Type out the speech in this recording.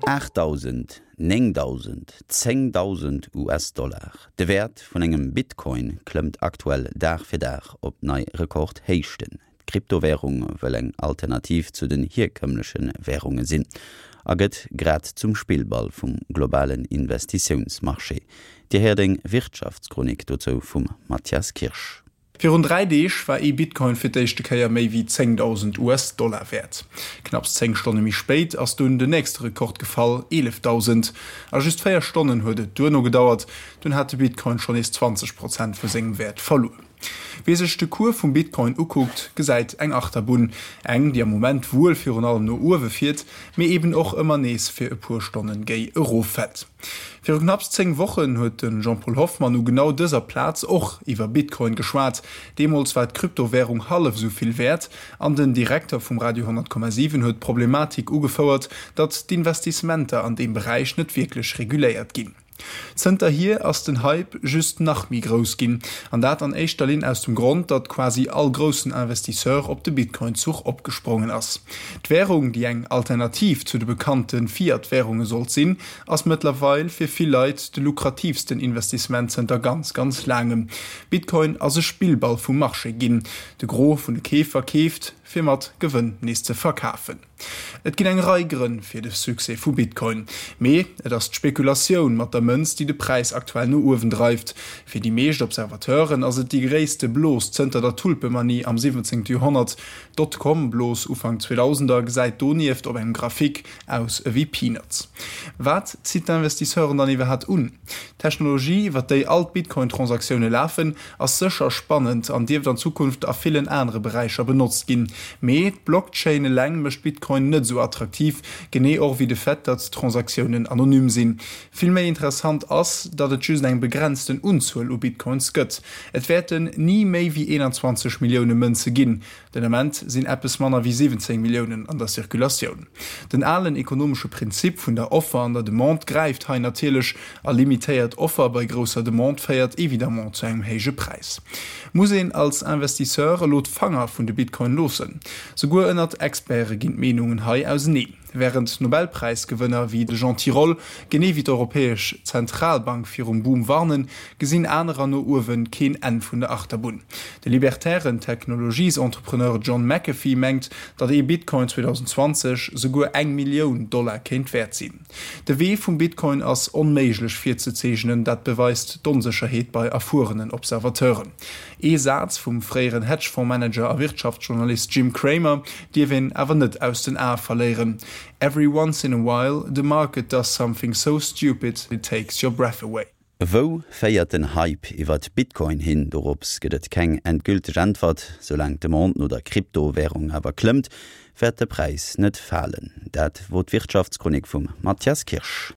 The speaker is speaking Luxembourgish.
8.000, 9.000, 10.000 US-Dollar, de Wäert vun engem Bitcoin klëmmt aktuell Dag fir Dag op nei Rekordhéichten. D'Kryptowärung wëll eng Alternativ zu den hierkëmmleche Wärunge sinn a gëtt grad zum Spillball vum globalen Investitiounsmarché. Dir héiert eng Wirtschaftschronik dozou vum Mathias Kirsch. Virun 3 Deeg war ee Bitcoin fir d'éischte Kéier méi wéi 10.000 US-Dollar wäert. Knapps 10 Stonne méi spéit ass dunn den nächste Rekord gefall, 11.000. A just 4 Stonnen huet et duerno gedauert, dunn hat de Bitcoin schonn nees 20 Prozent vu sengem Wäert verluer. Wee sech de Cours vum Bitcoin ukuckt, gesäit eng Achterbunn. Eng, déi am Moment wuel virun allem no uewe fiert, mee eben och ëmmer nees fir e puer Stonnen géi eroffält. Viru knapps 10 Wochen huet de Jean-Paul Hoffmann u genau dëser Plaz och iwwer Bitcoin geschwat. Deemools war d'Kryptowärung hallef esou vill wäert an den Direkter vum Radio 10,7 huet d'Problematik ugefouert, datt d'Investissementer an deem Beräich net wierklech reguléiert ginn. Zënterhier ass den Hype just nach méi grouss ginn, an dat an éischter Linn aus dem Grond, datt quasi all groussen Investisseur op de Bitcoin-Zuch opgesprongen ass. D'Wärung, déi eng Alternativ zu de bekannte Fiat-Wärunge sollt sinn, ass mëttlerweil fir vill Leit de lukratiivsten Investissement zënter ganz, ganz laangem. Bitcoin ass e Spillball vum Marché ginn. De Gros vun de Keefer keeft, fir mat Gewënn nees ze verkafen. Et ginn eng Rei Grënn fir de Succès vu Bitcoin, mee et ass d'Spekulatioun mat der Mënz, déi de Präis aktuell no uewen dreift. Fir déi meescht Observateuren ass et déi gréisste Blos zënter der Tulpemanie am 17. Joerhonnert. D'Dotcom-Blos Ufank 2000er gesäit donieft op engem Graphique aus ewéi Peanuts. Wat zitt d'Investisseuren dann iwwerhat un? D'Technologie, iwwer déi all d'Bitcoin-Transaktioune lafen, ass sécher spannend an dierft an Zukunft a villen anere Beräicher benotzt ginn. Mee d'Blockchain eleng mécht Bitcoin net esou attraktiv, genee och ewéi de Fait, datt d'Transaktiounen anonym sinn. Vill méi interessant ass, datt et just eng begrenzten Unzuel u Bitcoins gëtt. Et wäerten ni méi wéi 21 Millioune Mënze ginn. Den Ament sinn eppes manner wéi 17 Milliounen an der Circulatioun. Den alen ekonomesche Prinzip vun der Offer an der Demande gräift hei natierlech, a limitéiert Offer bei grousser Demande féiert évidemment zu engem héije Präis. Muss een als Investisseur elo d'Fanger vun de Bitcoin loossen? Souguer ënnert Experte ginn d'Meenungen hei auseneen. Wärend Nobelpräisgewënner wéi de Jean Tirole, genee wéi d'Europäesch Zentralbank virum Boom warnen, gesinn anerer no uewe keen Enn vun der Achterbunn. De libertären Technologiesentrepreneur John McAfee mengt, datt ee Bitcoin 2020 souguer eng Millioun Dollar kéint wäert sinn. De Wee vum Bitcoin ass onméiglech virzezeechnen, dat beweist d'Onsécherheet bei erfuerenen Observateuren. Ee Saz vum fréieren Hedgefonds-Manager a Wirtschaftsjournalist Jim Cramer dierf een awer net aus den Ae verléieren, Every once in a while, the market does something so stupid it takes your breath away. Wou féiert den Hype iwwert Bitcoin hin? Dorops gëtt et keng endgülteg Äntwert. Soulaang d'Demande no der Kryptowärung awer klëmmt, wäert de Präis net falen. Dat wor d'Wirtschaftschronik vum Mathias Kirsch.